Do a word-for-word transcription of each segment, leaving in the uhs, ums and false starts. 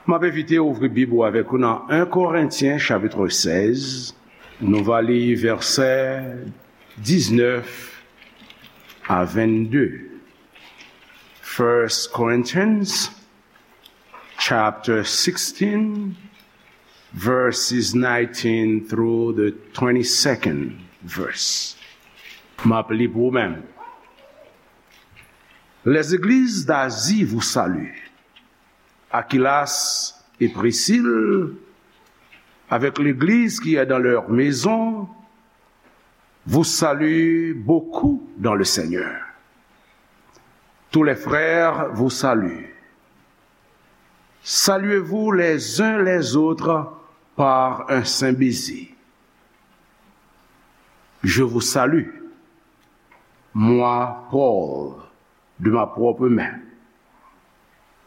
M ap envite w ouvri Bib ou avèk ou nan en Korentyen chapit sèz. Nou va li vèsè diznèf a vennde. First Corinthians chapter sixteen, verses nineteen through the twenty-second verse. M ap li pou ou menm. Les églises d'Asie vous saluent. Aquilas et Priscille, avec l'église qui est dans leur maison, vous saluent beaucoup dans le Seigneur. Tous les frères vous saluent. Saluez-vous les uns les autres par un saint baiser. Je vous salue, moi, Paul, de ma propre main.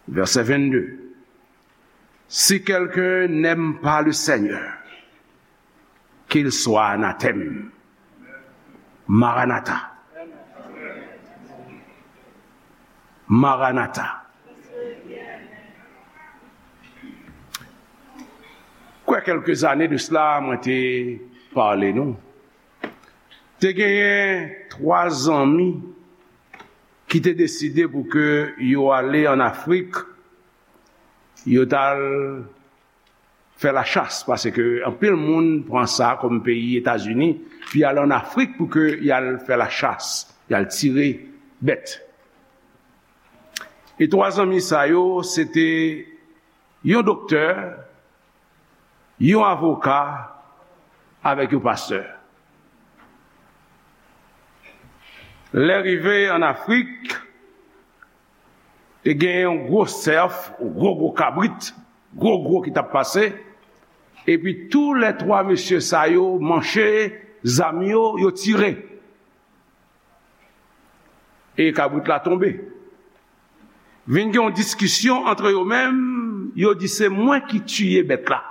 Verset vingt-deux. Si quelqu'un n'aime pas le Seigneur, qu'il soit anathème. Maranatha. Maranatha. Kwè kèlke zane de sila, mwen te pale nou. Te genyen twa zanmi ki te deside pou ke yo ale an Afrik, yo t al fè lachas, paske anpil moun pran sa kòm peyi Etazini, pi al an Afrik pou ke y al fè lachas, y al tire bèt. E twa zanmi sa yo, se te yon doktè, yon avoka, avèk yon pastè. Lè rive an Afrik, te gen yon gwo sèf, yon gwo, gwo kabrit, gwo, gwo ki t ap pase. Epi tou lè twa mesye sa yo manche zam yo, yo tire. E kabrit la tonbe. Vin gen yon diskisyon antre yo menm, yo di se mwen ki tiye bèt la.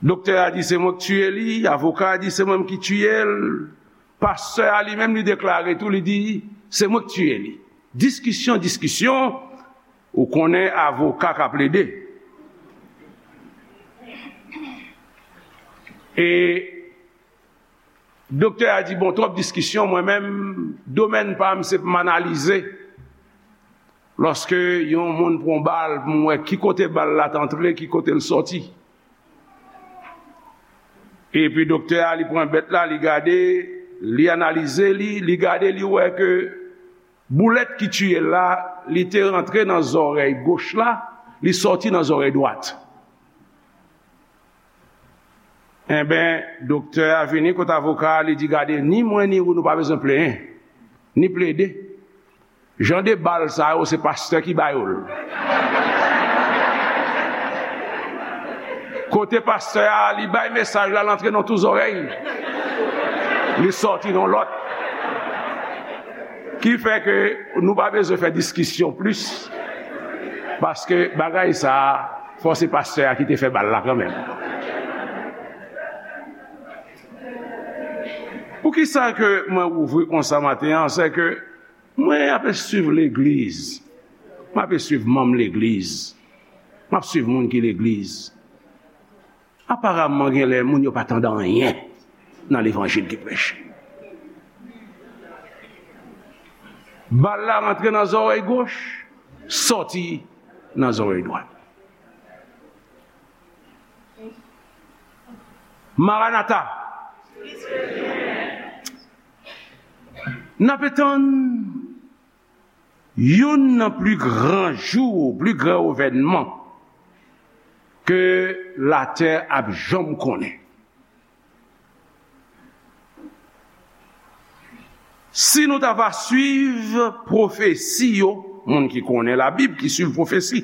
Doktè a di se mwen ki tiye li, avoka a di se mwen ki tiye l, pastè a li menm li deklare tou, li di se mwen ki tiye li. Diskisyon, diskisyon, ou konnen avoka ka plede. E Doktè a di, bon, twòp diskisyon, mwen menm, domèn pa m, se pou m analize. Lòske yon moun pran bal, pou m wè ki kote bal la t antre, ki kote l sòti. Epi doktè a, li pran bèt la, li gade, li analize li, li gade, li wè ke boulèt ki tiye l la, li te rantre nan zòrèy goch la, li sòti nan zòrèy dwat. Enben, doktè a vini kot avoka a, li di, gade, ni mwen ni ou, nou pa bezwen plenyen, ni plede. Jan de bal sa yo, se pastè ki ba yo l. Kote pastè a, li bay mesaj la, l antre nan tou zòrèy. Li sòti nan lòt. Ki fè ke nou pa bezwen fè diskisyon plis, paske bagay sa a, fò se pastè a ki te fè bal la kanmenm. Poukisa ke mwen ouvri konsa maten an, se ke mwen ap swiv legliz, mwen ap swiv manm legliz, mwen ap swiv moun ki legliz. Aparamman, gen lè moun yo pa tande anyen nan levanjil ki preche. Bal la rantre nan zòrèy goch, sòti nan zòrèy dwat. Maranata. N ap tann youn nan pli gran jou, pli gran evènman ke latè ap janm konnen. Si nou ta va swiv pwofesi yo, moun ki konnen Labib, ki swiv pwofesi,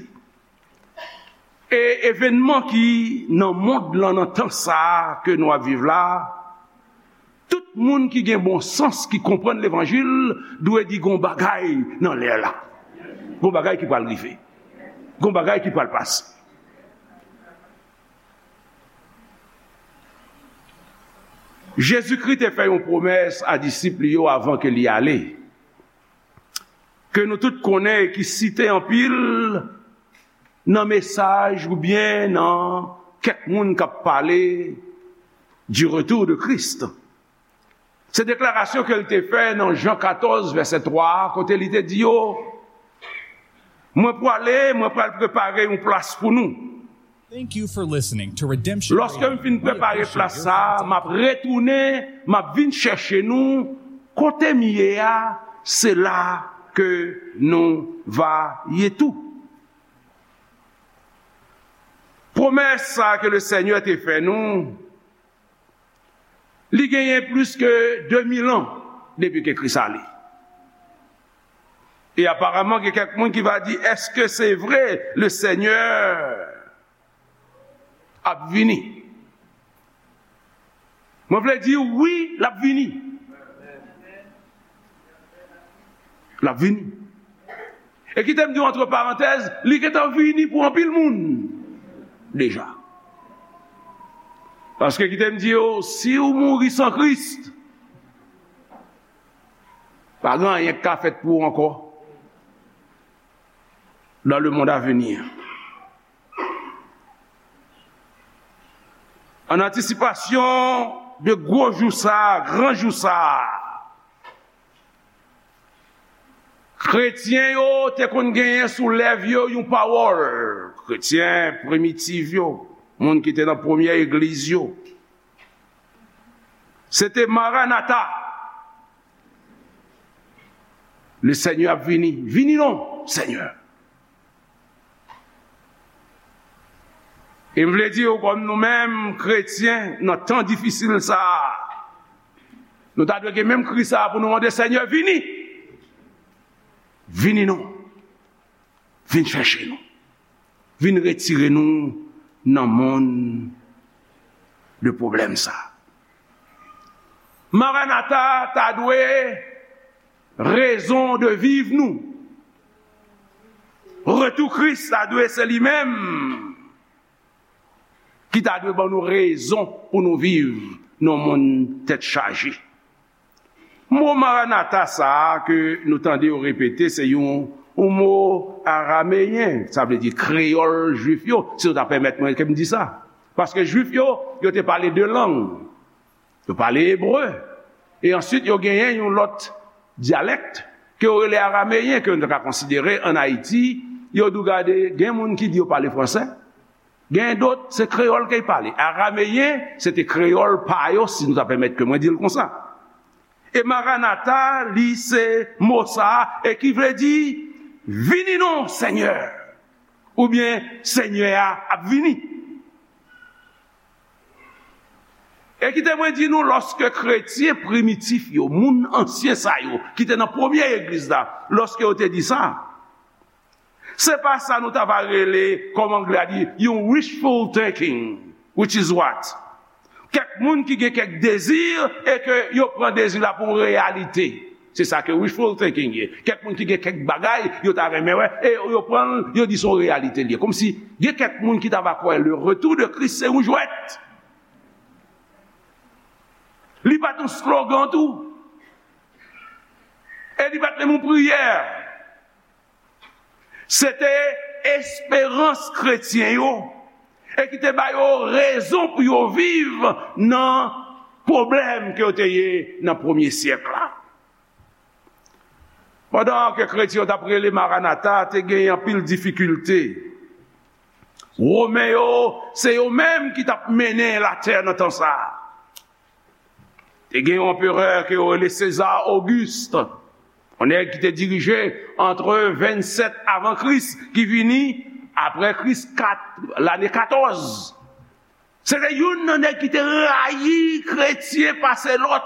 e evènman ki nan mond lan, nan tan sa a ke nou ap viv la, tout moun ki gen bon sans, ki konprann levanjil, dwe di gon bagay nan lè la. Gon bagay ki pral rive. Gon bagay ki pral pase. Jezikri te fè yon pwomès a disip li yo avan ke li ale, ke nou tout konnen e ki site anpil, nan mesaj oubyen nan kèk moun k ap pale du retour de Christ. Se deklarasyon ke l te fè nan Jan katòz, vèsè twa a, kote li te di yo, "Mwen prale, mwen pral prepare yon plas pou nou. Thank you for listening to Redemption Lòske Radio. M fin prepare plas sa a, m ap retounen, m ap vin chèche nou. Kote m ye a, se la ke nou va ye tou." Pwomès sa a ke le Senyè te fè nou, li genyen plis ke de mil an depi ke Kris ale. E aparaman, gen kèk moun ki va di, "Èske se vre, le Senyè ap vini?" Mwen vle di, wi, l ap vini. L ap vini. E kite m di w, antre parantèz, li gentan vini pou anpil moun deja. Paske kite m di w, si w mouri san Kris, pa gen anyen k ka fèt pou w ankò dans le monde à venir. An antisipasyon de gwo jou sa a, gran jou sa a, kretyen yo te konn genyen sou lèv yo yon pawòl. Kretyen primitif yo, moun ki te nan premyè egliz yo, se te Maranata. Le Senyè ap vini. Vini non, Senyè. E m vle di w, kòm nou menm, kretyen, nan tan difisil sa a, nou ta dwe gen menm kri sa a pou nou mande, "Senyè, vini! Vini non! Vin chèche nou! Vin retire nou nan monn de pwoblèm sa a!" Maranata ta dwe rezon de viv nou. Retou Kris ta dwe se li menm ki ta dwe ban nou rezon pou nou viv nan yon monn tèt chaje. Mo Maranata sa a ke nou tande yo repete, se yon, yon mo arameyen, sa vle di kreyòl jwif yo, si nou ta pèmèt mwen ke m di sa. Paske jwif yo, yo te pale de lang. Yo pale ebre. E answit, yo genyen yon lòt dyalèk ke yo rele arameyen, ke nou ta ka konsidere ann Ayiti. Yo di w, gade, gen moun ki di yo pale fransè. Gen dòt, se kreyòl ke y pale. Arameyen, se te kreyòl pa yo, si nou ta pèmèt ke mwen di l konsa. E Maranata, li se mo sa a, e ki vle di, "Vini non, Senyè!" Oubyen, "Senyè a ap vini." E kite mwen di nou, lòske kretyen primitif yo, moun ansyen sa yo, ki te nan premye egliz la, lòske yo te di sa, se pa sa nou ta va rele, kòm anglè a di, yon wishful thinking, which is what? Kèk moun ki gen kèk dezi e ke yo pran dezi la pou yon reyalite. Se sa ke wishful thinking ye. Kèk moun ki gen kèk bagay, yo ta renmen wè, e yo pran l, yo di se yon reyalite l ye. Kòmsi gen kèk moun ki ta va kwè le retour de Christ se yon jwèt. Li pa t yon slogan tou. E li pa t menm yon priyè. Se te esperans kretyen yo, e ki te ba yo rezon pou yo viv nan pwoblèm ke yo te ye nan premye syèk la. Pandan ke kretyen yo t ap rele Maranata, te gen anpil difikilte. Women yo, se yo menm ki t ap mennen latè nan tan sa a. Te gen yon anperè ke yo rele Seza Ogist, yon nèg ki te dirije antre vennsèt avan Kris, ki vini apre Kris kat, lane katòz. Se te youn nan nèg ki te rayi kretyen pase lòt.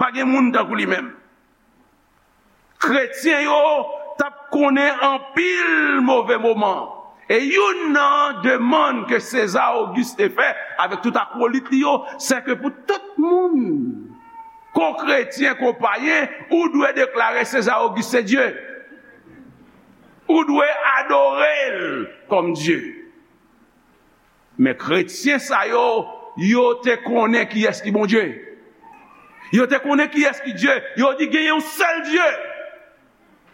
Pa gen moun tankou li menm. Kretyen yo t ap konnen anpil move moman. E youn nan demann ke Seza Ogis te fè avèk tout akwolit li yo, se ke pou tout moun, ko kretyen, ko payen, ou dwe deklare Seza Ogis se Dye. Ou dwe adore l kòm Dye. Men kretyen sa yo, yo te konnen kiyès ki Bondye. Yo te konnen kiyès ki Dye. Yo di gen yon sèl Dye.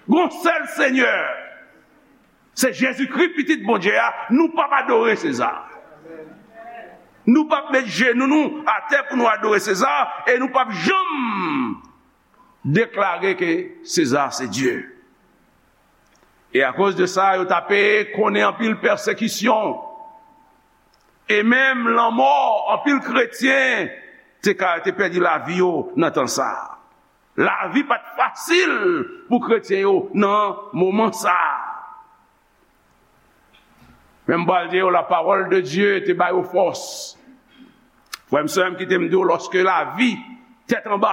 Gon sèl Senyè. Se Jezikri, Pitit Bondye a, nou p ap adore Seza. Nou p ap met jenou nou atè pou nou adore Seza, e nou p ap janm deklare ke Seza se Dye. E akoz de sa, yo t ape konnen anpil pèsekisyon. E menm lanmò, anpil kretyen te ka, te pèdi lavi yo nan tan sa a. Lavi pa t fasil pou kretyen yo nan moman sa a. Men m pral di yo, la parole de Dieu te ba yo fòs. Frè m, sè m, kite m di w, lòske lavi tèt anba,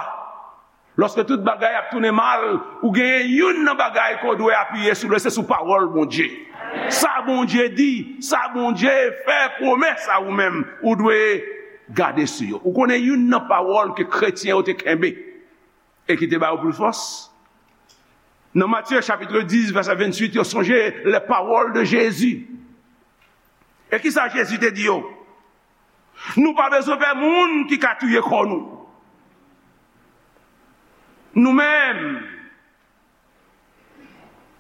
lòske tout bagay ap tounen mal, ou genyen youn nan bagay ke w dwe apiye sou li, se sou pawòl Bondye. Sa Bondye di, sa Bondye fè pwomès a ou menm, ou dwe gade sou yo. Ou konnen youn nan pawòl ke kretyen yo te kenbe e ki te ba yo plis fòs? Nan Matye chapit dis, vèsè venntuit, yo sonje les paroles de Jésus. E ki sa Jezi te di yo? Nou pa bezwen pè moun ki ka touye kò nou. Nou menm,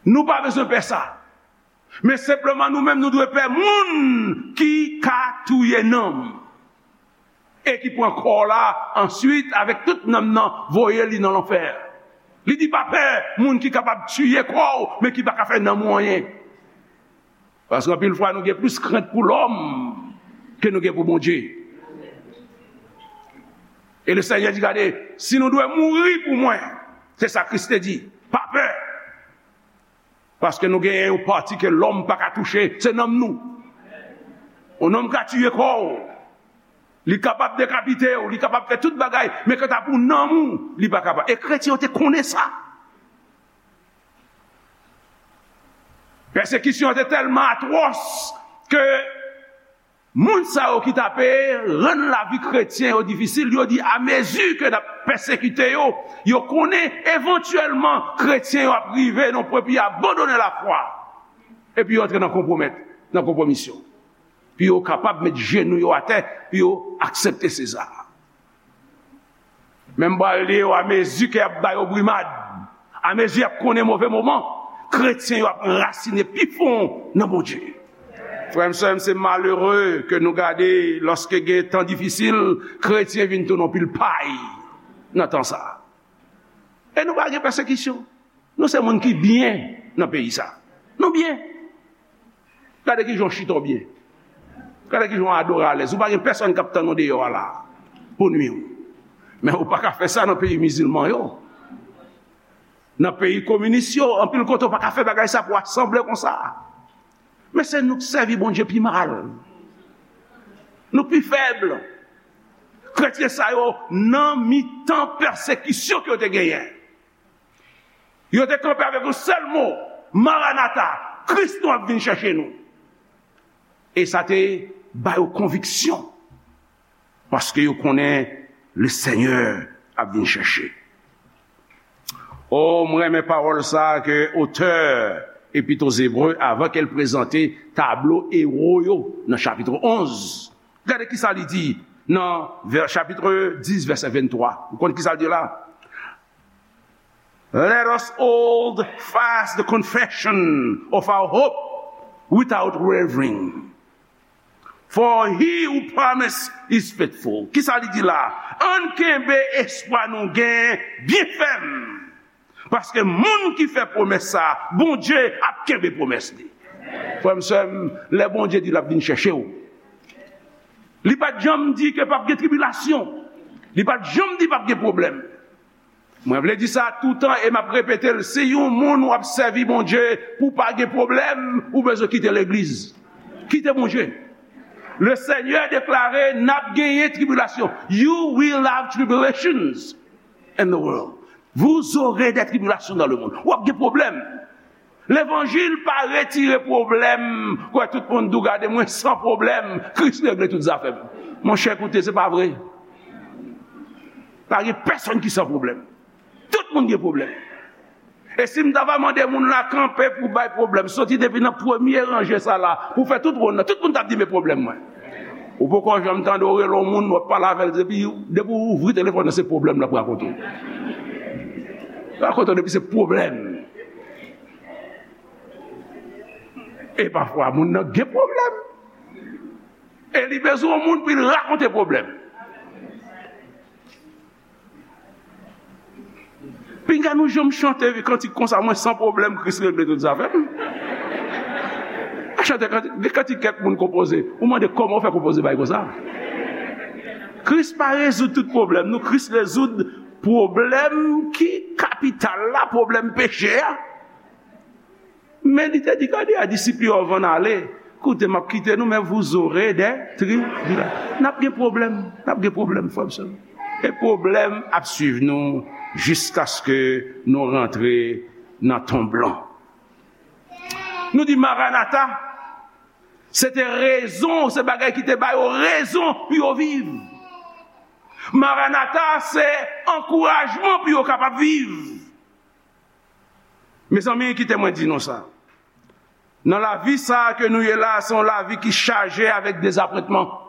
nou pa bezwen pè sa. Men senpleman nou menm nou dwe pè moun ki ka touye nanm. E ki pran kò w la answit avèk tout nanm nan, voye li nan lanfè. Li di pa pè moun ki kapab tiye kò w, men ki pa ka fè nanm ou anyen. Paske anpil fwa nou gen plis krent pou lòm ke nou gen pou Bondye. E le Senyè di, gade, si nou dwe mouri pou mwen, se sa Kris te di, pa pè. Paske nou genyen yon pati ke lòm pa ka touche, se nanm nou. Yon nonm ka tiye kò w, li kapab dekapite w, li kapab fè tout bagay, men kanta pou nanm ou, li pa kapab. E kretyen yo te konnen sa. Pèsekisyon an te tèlman atwòs ke moun sa yo ki t ape rann lavi kretyen yo difisil, yo di, amezi ke n ap pèsekite yo, yo konnen evantyèlman kretyen yo ap rive nan pwen pou yo abandone lafwa, epi yo antre nan konpwomèt, nan konpwomisyon, pou yo kapab met jenou yo atè, pou yo aksepte Seza. Men m pral di yo, amezi ke y ap ba yo brimad, amezi y ap konnen move moman, kretyen yo ap rasinen pi fon nan Bondye. Frè m, sè m, se malere ke nou gade lòske gen tan difisil, kretyen vin tounen yon pil pay nan tan sa a. E nou pa gen pèsekisyon. Nou se moun ki byen nan peyi sa. Nou byen. Gade kijan w chita w byen. Gade kijan w adore alèz. Ou pa gen pèsonn k ap tann ou deyò a la pou nwi w. Men ou pa ka fè sa nan peyi mizilman yo. Nan peyi kominis yo, anpil kote ou pa ka fè bagay sa pou w asanble konsa. Men se nou k sèvi Bondye pi mal. Nou pi fèb. Kretyen sa yo nan mitan pèsekisyon ke yo te genyen. Yo te kanpe avèk yon sèl mo, Maranata, Kris nou ap vin chèche nou. E sa te ba yo konviksyon, paske yo konnen le Senyè ap vin chèche. O, mwen renmen pawòl sa a ke otè Epit o Ebre, avan ke l prezante tablo ewo yo nan chapit onz, gade ki sa li di nan vè-, chapit dis, vèsè venntwa. Ou konn ki sa l di la? Let us hold fast the confession of our hope without wavering. For he who promised is faithful. Ki sa li di la? Ann kenbe espwa nou gen byen fèm. Paske moun ki fè pwomès sa, Bondye ap kenbe pwomès li. Frè m, sè m, lè Bondye di l ap vin chèche w, li pa t janm di ke p ap gen tribilasyon. Li pa t janm di p ap gen pwoblèm. Mwen vle di sa toutan e m ap repete l, si yon moun w ap sèvi Bondye pou w pa gen pwoblèm, ou bezwen kite legliz. Kite Bondye. Le Senyè deklare n ap genyen tribilasyon. You will have tribulations in the world. Vous aurez des tribulations dans le monde. W ap gen pwoblèm. Levanjil pa retire pwoblèm. Kwè tout moun di w, gade mwen san pwoblèm, Kris regle tout zafè m. Monchè, koute, se pa vre. Pa gen pèsonn ki san pwoblèm. Tout moun gen pwoblèm. E si m ta va mande moun la kanpe pou bay pwoblèm, soti depi nan premye ranje sa la, pou fè tout wonn nan, tout moun t ap di, "Men pwoblèm mwen." Ou poko janm tande w rele yon moun, w ap pale avè l, depi, depi w ouvri telefòn nan, se pwoblèm l ap rakonte w. Rakonte w depi se pwoblèm. E pafwa, moun nan gen pwoblèm. E li bezwen yon moun pou l rakonte pwoblèm. Pinga nou janm chante kantik konsa, mwen san pwoblèm, Kris regle tout zafè m. A chante kantik, gen kantik kèk moun konpoze. Ou mande kòman w fè konpoze bay konsa. Kris pa rezoud tout pwoblèm nou, Kris rezoud pwoblèm ki kapital la, pwoblèm peche a. Men li te di, gade a disip li yo, anvan n ale, koute, m ap kite nou, men vous aurez des tribulations. N ap gen pwoblèm, n ap gen pwoblèm, frè m, sè m. E pwoblèm ap swiv nou jiskaske nou rantre nan tonm lan. Nou di Maranata, se te rezon, se bagay ki te ba yo rezon pou yo viv. Maranata, se ankourajman pou yo kapab viv. Mezanmi, kite mwen di nou sa. Nan lavi sa a ke nou ye la, se yon lavi ki chaje avèk dezapwentman.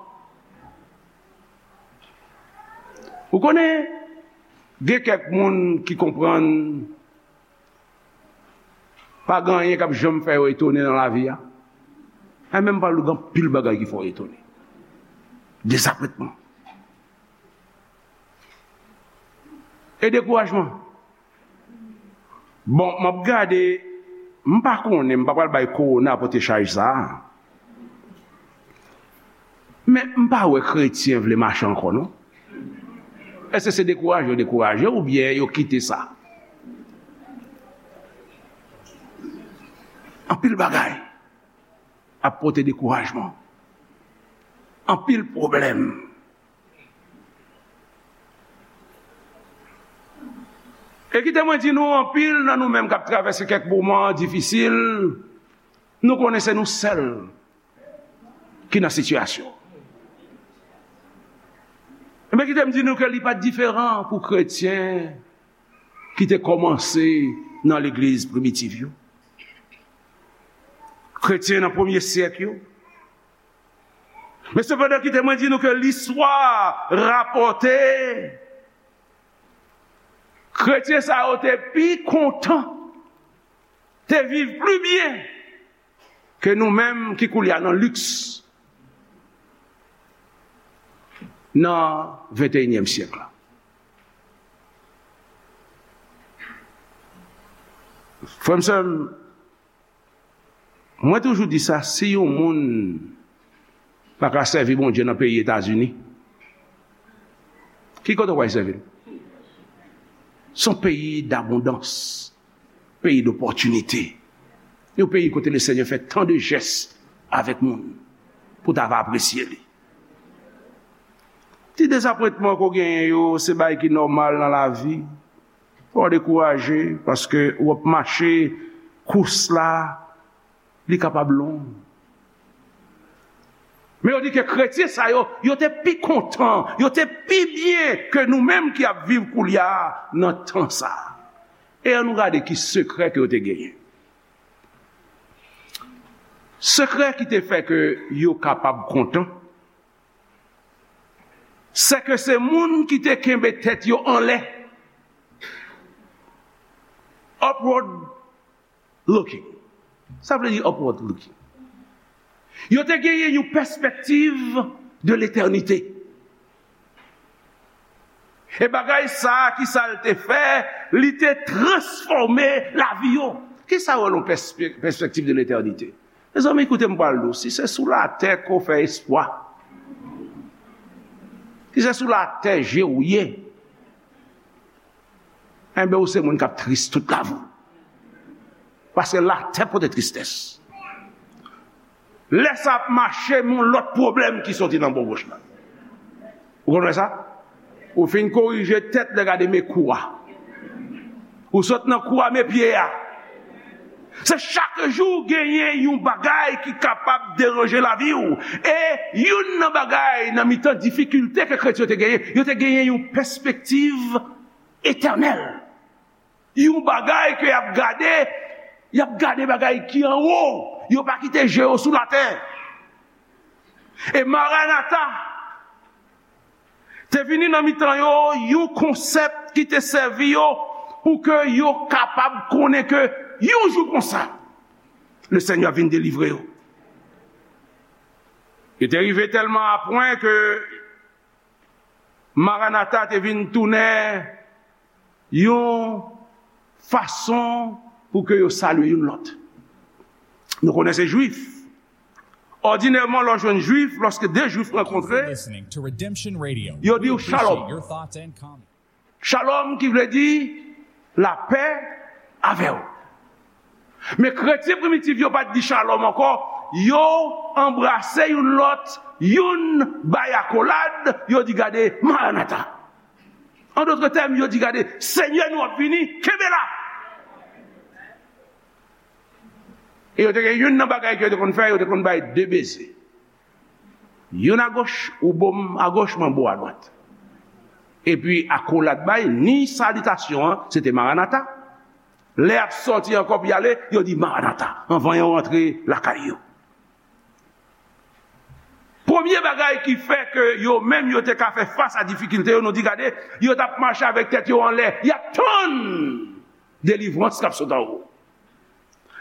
Ou konnen, gen kèk moun ki konprann pa gen anyen k ap janm fè yo etone nan lavi a. Mwen menm, m pral di w, gen anpil bagay ki fè w etone. Dezapwentman. E dekourajman. Bon, m ap gade, m pa konnen, m pa pral bay kowona pote chaj sa a. Men m pa wè kretyen vle mache ankò, non. Èske se dekouraje yo dekouraje oubyen yo kite sa? Anpil bagay ap pote dekourajman. Anpil pwoblèm. E kite mwen di nou, anpil nan nou menm k ap travèse kèk moman difisil, nou konnen se nou sèl ki nan sitiyasyon. Ebyen, kite m di nou ke li pa t diferan pou kretyen ki te kòmanse nan legliz primitiv yo. Kretyen nan premye syèk yo. Men sepandan, kite mwen di nou ke listwa rapòte, kretyen sa yo te pi kontan, te viv pli byen ke nou menm ki koulye a nan liks nan venteyinyèm syèk la. Frè m, sè m, mwen toujou di sa, si yon moun pa ka sèvi Bondye nan peyi Etazini, ki kote w pral sèvi l? Se yon peyi dabondans, peyi dopòtinite, yon peyi kote Lesenyè fè tan de jès avèk moun pou ta va apresye li. Ti dezapwentman ke w genyen yo, se bagay ki nòmal nan lavi. Fò w dekouraje, paske w ap mache kous la, li kapab long. Men yo di ke kretyen sa yo, yo te pi kontan, yo te pi byen ke nou menm ki ap viv koulye a nan tan sa a. E ann nou gade ki sekrè ke yo te genyen. Sekrè ki te fè ke yo kapab kontan, se ke se moun ki te kenbe tèt yo anlè. Upward looking. Sa vle di upward looking. Yo te genyen yon pèspektiv de letènite. E bagay sa a, ki sa l te fè? Li te transfòme lavi yo. Ki sa yo rele yon pèspe-, pèspektiv de letènite? Mezanmi, koute m pral di w, si se sou latè ke w fè espwa, si se sou latè je w ye, enben, ou se moun k ap tris tout lavi w. Paske latè pote tristès. Lè sa ap mache, men yon lòt pwoblèm ki soti nan bò goch la. Ou konn wè sa? Ou fin korije tèt, lè gade men kou a. Ou sot nan kou a, men pye a. Se chak jou genyen yon bagay ki kapab deranje lavi w. E youn nan bagay, nan mitan difikilte ke kretyen yo te genyen, yo te genyen yon pèspektiv etènèl. Yon bagay ke y ap gade, y ap gade bagay ki anwo. Yo pa kite je yo sou latè. E Maranata te vini nan mitan yo, yon konsèp ki te sèvi yo pou ke yo kapab konnen ke yon jou konsa, Lesenyè vin delivre yo. Yo te rive tèlman a pwen ke Maranata te vin tounen yon fason pou ke yo salye youn lòt. Nou konnen se Jwif. Òdinèman, lè w jwenn Jwif, lòske de Jwif rankontre, yo di w shalom. Shalom ki vle di lapè avè w. Men kretyen primitif yo pa t di shalom ankò, yo anbrase youn lòt, youn bay akolad, yo di gade Maranata. An dòt tèm, yo di gade Senyè nou ap vini, kenbe la. E yo te gen youn nan bagay ke yo te konn fè, yo te konn bay de beze. Youn agoch, ou bo m agoch, mwen bo adwat. Epi akolad bay, ni salitasyon an, se te Maranata. Lè y ap sòti ankò pou y ale, yo di Maranata, anvan yo rantre lakay yo. Premye bagay ki fè ke yo menm yo te ka fè fas a difikilte yo, nou di gade, yo t ap mache avèk tèt yo anlè, y ap tann delivrans k ap sot anwo.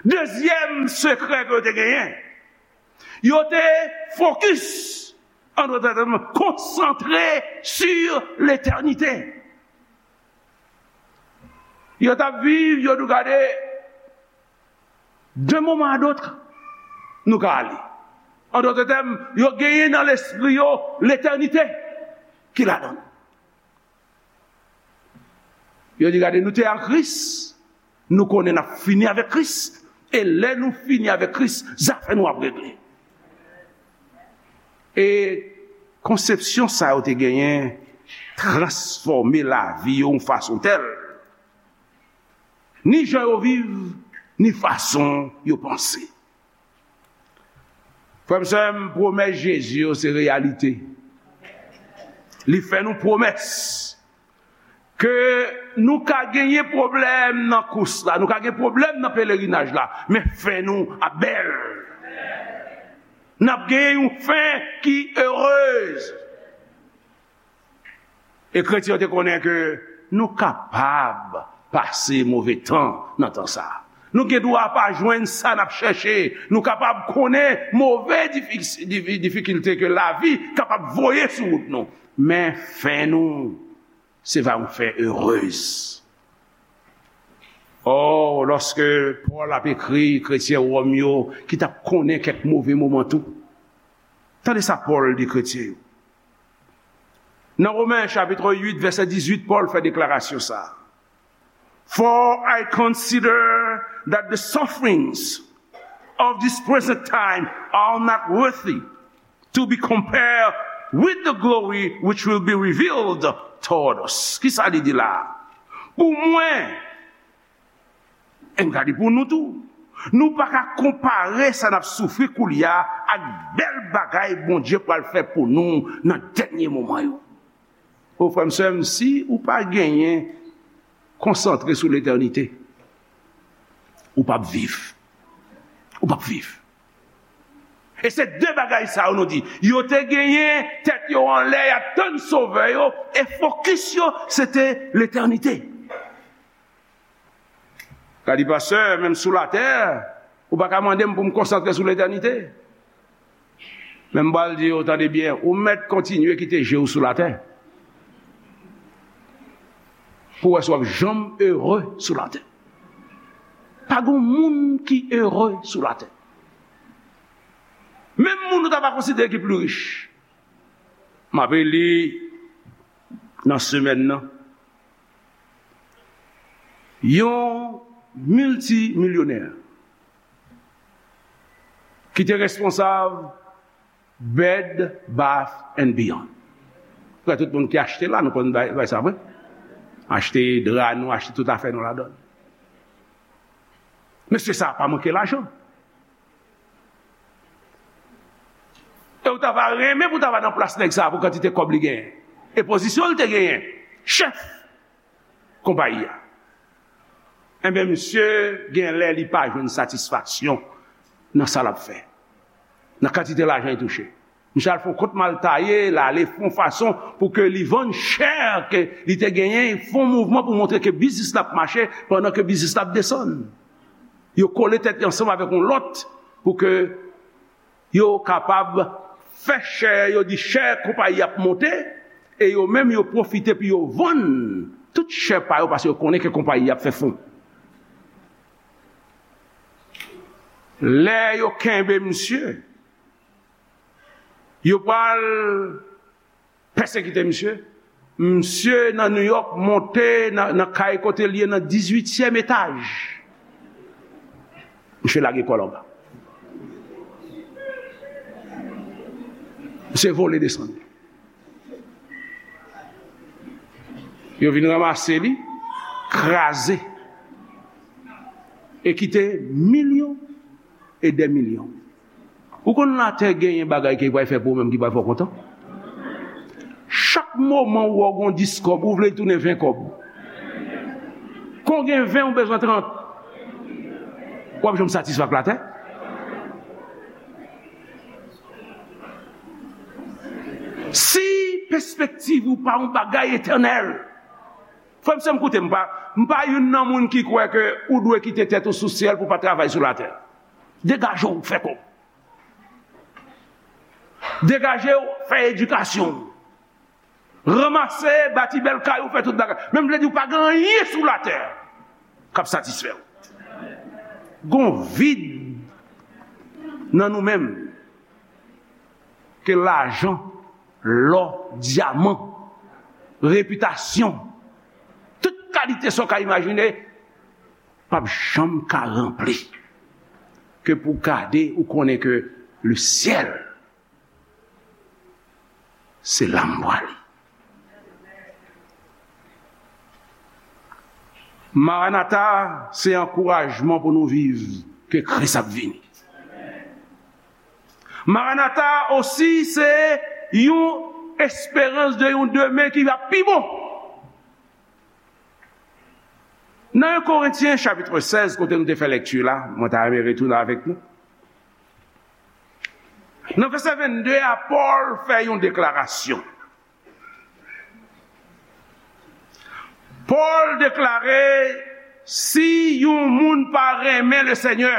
Dezyèm sekrè ke yo te genyen, yo te fokis, an dòt tèm, konsantre sur l'éternité. Yo t ap viv, yo di gade, d'un moment à l'autre, nou ka ale. An dòt tèm, yo genyen nan lespri yo letènite ki ladan l. Yo di gade, nou te ak Kris, nou konnen n ap fini avèk Kris, e lè nou fini avèk Kris, zafè nou ap regle. E konsepsyon sa yo te genyen transfòme lavi yo yon fason tèl, ni jan yo viv, ni fason yo panse. Frè m, sè m, pwomès Jezi yo se reyalite. Li fè nou pwomès ke nou ka genyen pwoblèm nan kous la, nou ka gen pwoblèm nan pelerinaj la, men fen nou ap bèl. N ap genyen yon fen ki erez. E kretyen yo te konnen ke nou kapab pase move tan nan tan sa a. Nou gen dwa pa jwenn sa n ap chèche. Nou kapab konnen move difi-, difi-, difikilte ke lavi kapab voye sou wout nou. Men fen nou, se va yon fen erez. Ò, lòske Pòl ap ekri kretyen Wòm yo ki t ap konnen kèk move moman tou, tande sa Pòl di kretyen yo. Nan Women chapit uit, vèsè dizuit, Pòl fè deklarasyon sa a. For I consider that the sufferings of this present time are not worthy to be compared with the glory which will be revealed toward us. Kisa li di la? Pou mwen, e m ka di pou nou tou, nou pa ka konpare sa n ap soufri koulye a ak bèl bagay Bondye pral fè pou nou nan dènye moman yo. O frè m, sè m, si ou pa genyen konsantre sou letènite, ou p ap viv. Ou p ap viv. E se de bagay sa yo nou di. Yo te genyen tèt yo anlè, y ap tann Sovè yo, e fokis yo, se te letènite. Ka di, pastè, menm sou latè, ou pa ka mande m pou m konsantre sou letènite. Men m pral di yo, tande byen, ou mèt kontinye kite je w sou latè. Pou w wè si w ap janm ere sou latè. Pa gen moun ki ere sou latè. Menm moun ou ta va konsidere ki pli rich. M ape li nan semèn nan. Yon miltimilyonè ki te responsab Bed Bath and Beyond. Prè tout moun ki achte la, nou konn bay, bay sa vre. Achte dra nou, achte tout afè nou ladan. Mesye sa a pa manke lajan. E ou ta va renmen pou ta va nan plas nèg sa a pou kantite kòb li genyen. E pozisyon li te genyen. Chèf konpayi a. Enben, misye gen lè li pa jwenn satisfaksyon nan sa l ap fè. Nan kantite lajan li touche. Misye al fè yon kont mal taye, l ale fè yon fason pou ke li vann chè ke li te genyen, fè yon mouvman pou montre ke biznis la ap mache pandan ke biznis la ap desann. Yo kole tèt yo ansanm avèk yon lòt pou ke yo kapab fè chè, yo di chè konpayi ap monte, e yo menm yo pwofite pou yo vann tout chè pa yo, paske yo konnen ke konpayi ap fè fon. Lè yo kenbe misye, yo pral pèsekite misye. Misye nan New York monte nan, nan kay kote l ye nan dizuityèm etaj. Misye lage kò l anba. Misye vole desann. Yo vin ranmase li, kraze, e kite milyon e dè milyon. Ou konn latè genyen bagay ke li pral fè pou ou menm ki pral fè w kontan? Chak moman ou wè w gen dis kòb, ou vle l tounen ven kòb. Kon gen ven, ou bezwen trant. W ap janm satisfè ak latè? Si pespektiv ou pa yon bagay etènèl, frè m, sè m, koute m, m pa, m pa youn nan moun ki kwè ke ou dwe kite tèt ou sou syèl pou w pa travay sou latè. Degaje w, fè kòb. Degaje w, fè edikasyon w. Ranmase, bati bèl kay ou, fè tout bagay. Men m vle di w pa gen anyen sou latè k ap satisfè w. Gon vid nan nou menm ke lajan, lò, dyaman, repitasyon, tout kalite sa w ka imajine, p ap janm ka ranpli. Ke pou gade, ou konnen ke le syèl, se la m prale. Maranata, se ankourajman pou nou viv ke Kris ap vini. Maranata osi, se yon esperans de yon demen ki ap pi bon. Nan en Korentyen chapit sèz, kote nou te fè lekti la, mwen ta renmen retounen avèk nou. Nan vèsè vennde a, Pòl fè yon deklarasyon. Pòl deklare, si yon moun pa renmen Lesenyè,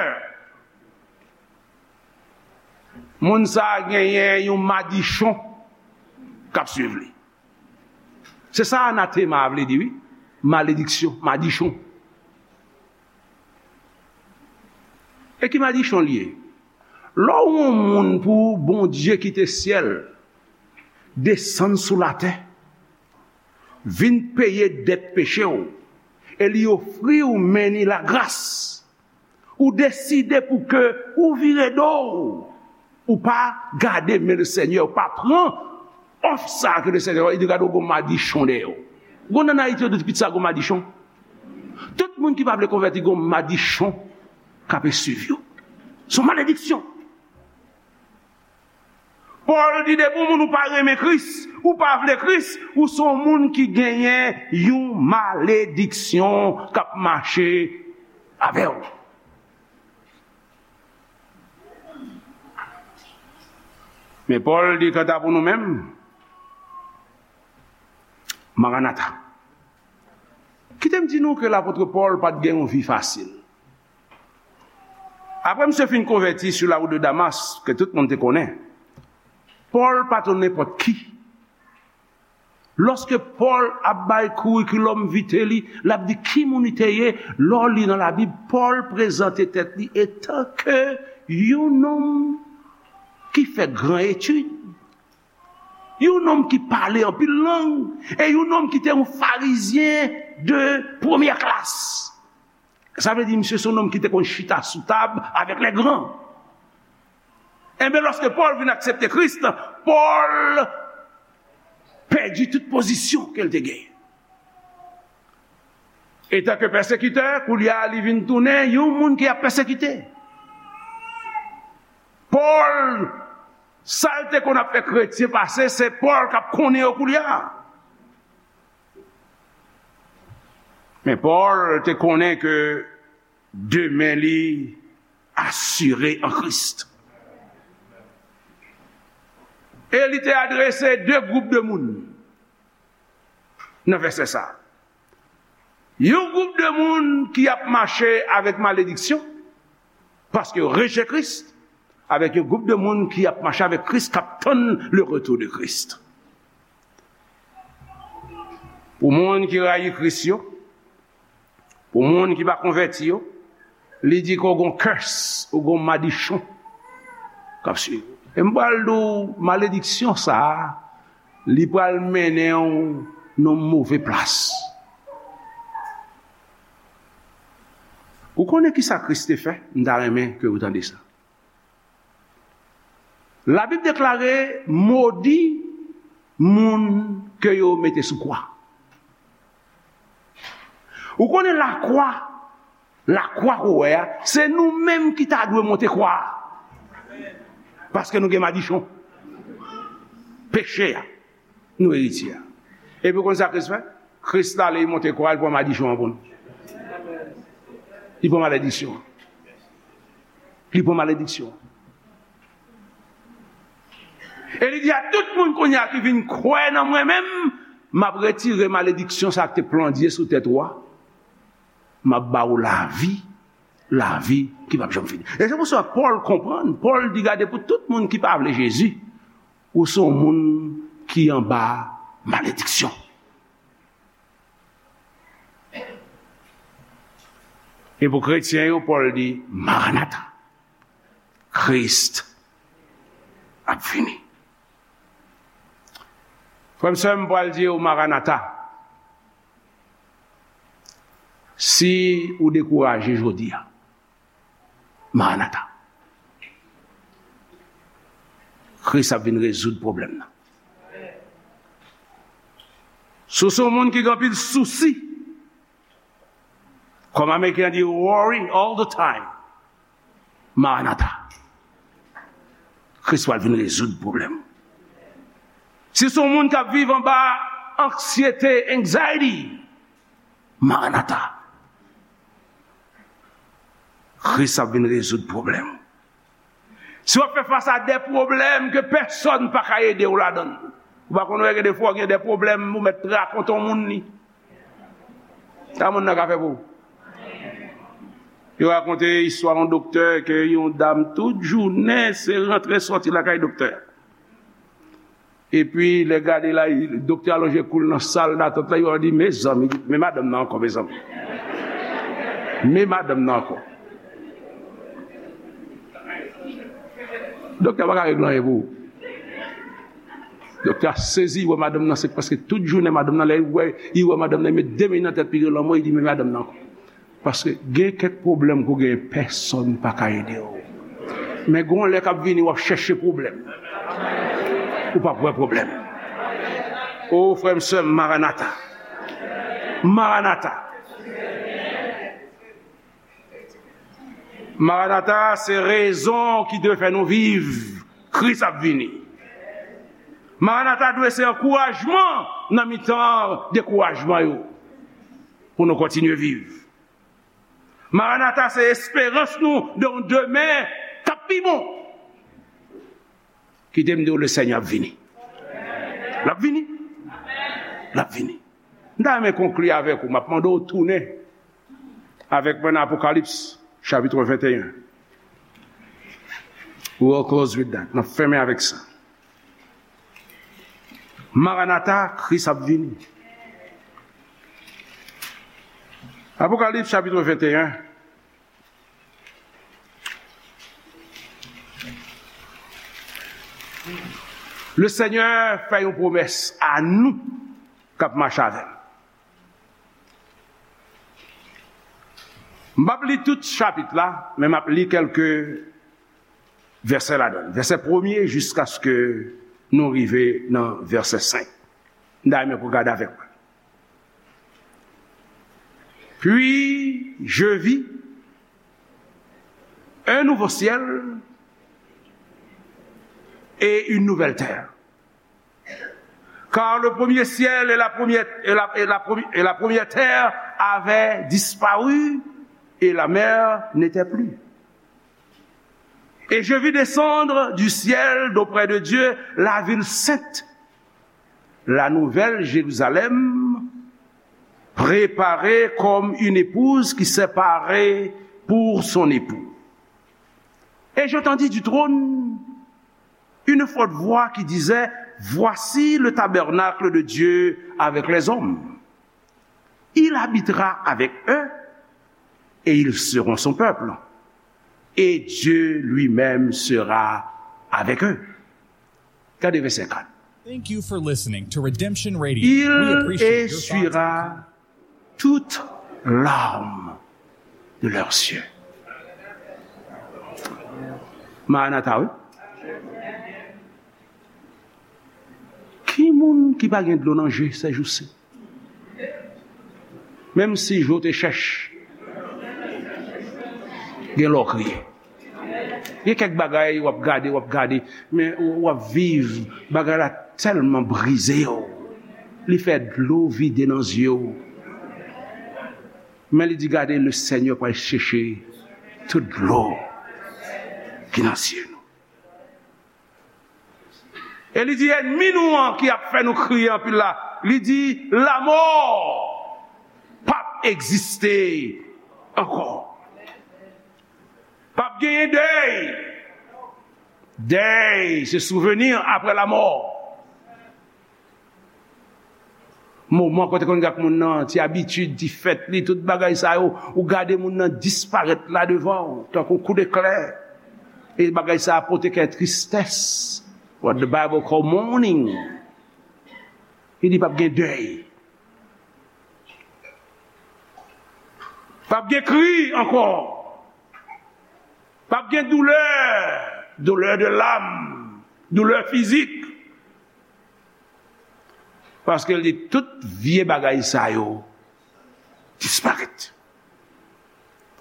moun sa a genyen yon madichon k ap swiv li. Se sa anatema a vle di, wi. Malediksyon, madichon. E ki madichon l ye? Lè w yon moun pou Bondye kite syèl, desann sou latè, vin peye dèt peche w, e li ofri w men ni lagras, ou deside pou ke ou vire do w, ou pa gade men Lesenyè, ou pa pran òf sa a ke Lesenyè, li di gade w gon madichon dèyè w. Gon nan Ayiti yo di pitit sa gon madichon. Tout moun ki pa vle konvèti gon madichon k ap eswiv yo. Se yon malediksyon. Pòl di depi yon moun ou pa renmen Kris, ou pa vle Kris, ou se yon moun ki genyen yon malediksyon k ap mache avè w. Men Pòl di kanta pou nou menm, Maranata. Kite m di nou ke lapot Pòl pa t gen yon vi fasil. Apre misye fin konvèti sou lawout de Damas, ke tout moun te konnen, Pòl pa t yon nenpòt ki. Lòske Pòl ap bay curriculum vitae li, l ap di ki moun li te ye, lè w li nan Labib, Pòl prezante tèt li etanke yon nonm ki fè gran etid, yon nonm ki pale anpil lang, e yon nonm ki te yon farizyen de premyè klas. Sa vle di, misye se yon nonm ki te konn chita sou tab avèk lè gran. Enben, lòske Pòl vin aksepte Kris, Pòl pèdi tout pozisyon ke l te genyen. Etanke pèsekitè, koulye a, li vin tounen yon moun ki ap pèsekite. Pòl, sa l te konn ap fè kretyen pase, se Pòl k ap konnen yo koulye a. Men Pòl te konnen ke demen li asire an Kris. E li te adrese de gwoup de moun nan vèsè sa a. Yon gwoup de moun ki ap mache avèk malediksyon, Paske yo rejte Kris, avèk yon gwoup de moun ki ap mache avèk Kris, k ap tann le retour de Christ. Pou moun ki rayi Kris yo, pou moun ki pa konvèti yo, li di ke w gon curse, ou gon madichon k ap swiv ou. E m pral di w, malediksyon sa a, li pral mennen w nan yon move plas. Ou konnen ki sa Kris te fè? M ta renmen ke ou tande sa. Labib deklare, modi moun ke yo mete sou kwa. Ou konnen lakwa, lakwa ke w wè a, se nou menm ki ta dwe monte kwa a. Paske nou gen madichon. Peche a. Nou eritye a. Epi w konn sa Kris fè? Kris t ale, li monte kwa, li pran madichon an pou nou. Li pran malediksyon an. Li pran malediksyon an. E li di a tout moun kounye a ki vin kwè nan mwen menm, m ap retire malediksyon sa a ki te plandye sou tèt ou a. M ap ba ou lavi, lavi ki p ap janm fini. E se pou sa Pòl konprann. Pòl di, gade, pou tout moun ki pa vle Jezi, ou se yon moun ki anba malediksyon. E pou kretyen yo, Pòl di, Maranata, Kris ap vini. Frè m, sè m, m pral di w, Maranata. Si ou dekouraje jodi a, Maranata. Kris ap vin rezoud pwoblèm nan. Si w se yon moun ki gen anpil sousi, kòm Ameriken an di, worry all the time, Maranata. Kris pral vin rezoud pwoblèm ou. Si se yon moun k ap viv anba anksyete, anxiety, Maranata. Kris ap vin rezoud pwoblèm ou. Si w ap fè fas a de pwoblèm ke pèsonn pa ka ede w ladan l, ou pa konn wè gen de fwa w gen de pwoblèm, ou mèt rakonte yon moun li. Sa moun nan ka fè pou ou? Yo rakonte istwa yon doktè ke yon dam tout jounen se rantre sòti lakay doktè. Epi lè gade la, doktè a lonje kou l nan sal datant la, yo di, mezanmi, men madanm nan ankò, mezanmi. Men madanm nan ankò. Doktè a pa ka regle anyen pou ou. Doktè a sezi, li wè madanm nan, se prèske tout jounen madanm nan, lè li wè, li wè madanm nan, li met de men nan tèt li, li lanmò, li di, men madanm nan ankò. Paske gen kèk pwoblèm ke w genyen, pèsonn pa ka ede w. Men gen yon lè k ap vini, w ap chèche pwoblèm. Ou p ap wè pwoblèm. O, frè m, sè m, Maranata. Maranata. Maranata, se rezon ki dwe fè nou viv. Kris ap vini. Maranata dwe se ankourajman nan mitan dekourajman yo, pou nou kontinye viv. Maranata se esperans nou de yon demen k ap pi bon. Kite m di w, le Senyè ap vini. L ap vini. L ap vini. M ta renmen konkli avèk ou. M ap mande w tounen avèk mwen nan Apokalips, chapit venteyen. We'll close with that. M ap fèmen avèk sa. Maranata, Kris ap vini. Apokalips, chapit venteyen. Le Senyè fè yon pwomès a nou k ap mache avè l. M p ap li tout chapit la, men m ap li kèlke vèsè ladan l. Vèsè premye jiskaske nou rive nan vèsè senk. M ta renmen pou w gade avèk mwen. Puis je vis un nouveau ciel et une nouvelle terre. Car le premier ciel et la première, et la, et la premi-, et la première terre avaient disparu et la mer n'était plus. Et je vis descendre du ciel d'auprès de Dieu la ville sainte, la nouvelle Jérusalem, préparée comme une épouse qui s'est parée pour son époux. Et j'entendis du trône une forte voix qui disait, Voici le tabernacle de Dieu avec les hommes. Il habitera avec eux et ils seront son peuple. Et Dieu lui-même sera avec eux. Gade vèsè kat. Thank you for listening to Redemption Radio. We appreciate your thoughts and essuiera toute larme de leurs yeux. Maranata, wi. Ki moun ki pa gen dlo nan je sèjousi? Menm si je w te chèch, gen lè w kriye. Gen kèk bagay w ap gade, w ap gade, men w ap viv, bagay la tèlman brize w. Li fè dlo vide nan zye w. Men li di, gade, le Seigneur pral chèche tout dlo ki nan zye nou. E li di, ènmi nou an ki ap fè nou kriye anpil la, li di, lanmò p ap egziste ankò. P ap genyen dèy. Dèy, se souvni apre lanmò. Moman kote konn gad moun nan, ti abitid, ti fèt li, tout bagay sa yo, ou gade moun nan disparèt la devan w, tankou kou deklè. E bagay sa a pote kè tristès. What the Bible call mourning. Li di p ap gen dèy. P ap gen kri ankò. P ap gen doulè, doulè de lam, doulè fizik. Paske li di tout vye bagay sa yo disparèt.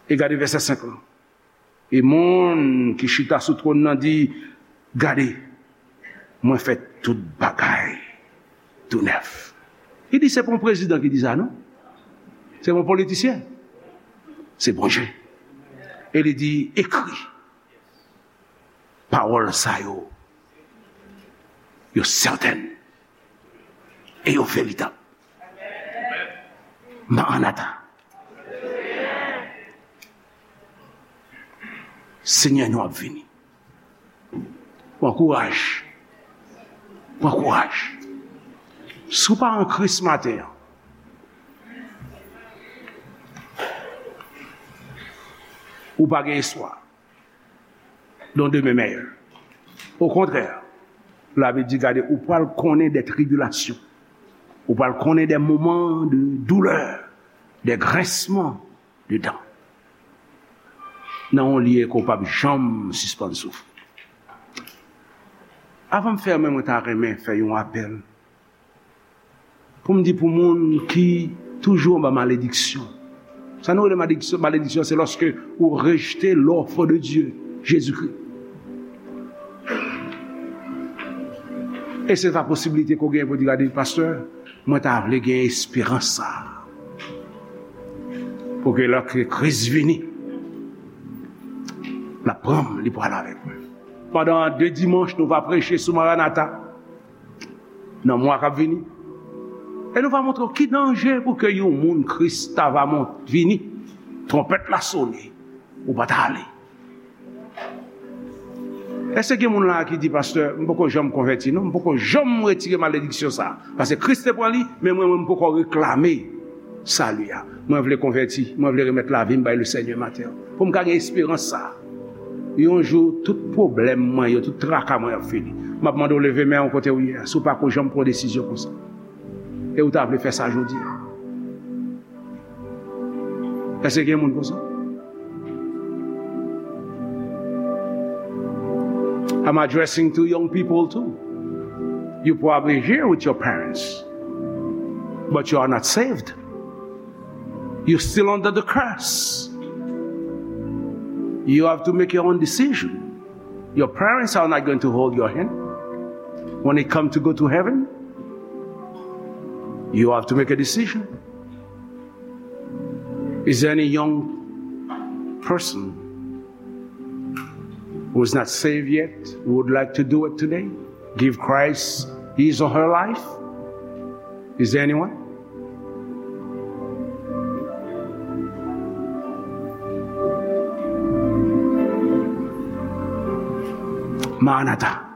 E gade vèsè senk lan. E moun ki chita sou twòn nan di, gade, mwen fè tout bagay tou nèf. Li di se pa yon prezidan ki di sa, non. Se pa yon politisyen. Se Bondye. E li di, ekri. Pawòl sa yo, yo sètèn e yo veritab. Maranata. Senyè nou ap vini. Pran kouraj. Pran kouraj. Si w pa an Kris maten an, ou pa gen espwa. Dans de mes meilleurs. Okontrè, Labib di, gade, ou pral konnen de tribilasyon. Ou pral konnen de moman de doulè, de grensman de dan. Nan yon lye ke w p ap janm sispann soufri. Avan m fèmen, mwen ta renmen fè yon apèl. Pou m di pou moun ki toujou anba malediksyon. Sa nou rele malediksyon, malediksyon, se lòske ou rejte lòf de Dye, Jezikri. E se pa posiblite ke w genyen pou di, gade, pastè, mwen ta vle gen esperans sa a. Pou ke lè ke Kris vini, l ap pran m, li pral avèk mwen. Pandan de dimanch, nou va preche sou Maranata. Nan mwa k ap vini. E nou va montre w ki danje pou ke yon moun Kris ta va mont, vini, twonpèt la sone, ou pa ta ale. Èske gen moun la ki di, pastè, m poko janm konvèti, non, m poko janm retire malediksyon sa a. Paske Kris te pran li, men mwen, mwen, m poko reklame sali a. Mwen vle konvèti, mwen vle remèt lavi m bay le Senyè maten an. Pou m ka gen esperans sa a. Yon jou, tout pwoblèm mwen yo, tout traka mwen ap fini. M ap mande w leve men w kote w ye a, si w pa ko janm pran desizyon konsa. E w ta vle fè sa jodi a. Èske gen moun konsa? I'm addressing to young people too. You probably here with your parents, but you are not saved. You're still under the curse. You have to make your own decision. Your parents are not going to hold your hand. When it comes to go to heaven, you have to make a decision. Is there any young person who is not saved yet, who would like to do it today? Give Christ his or her life? Is there anyone? Maranata.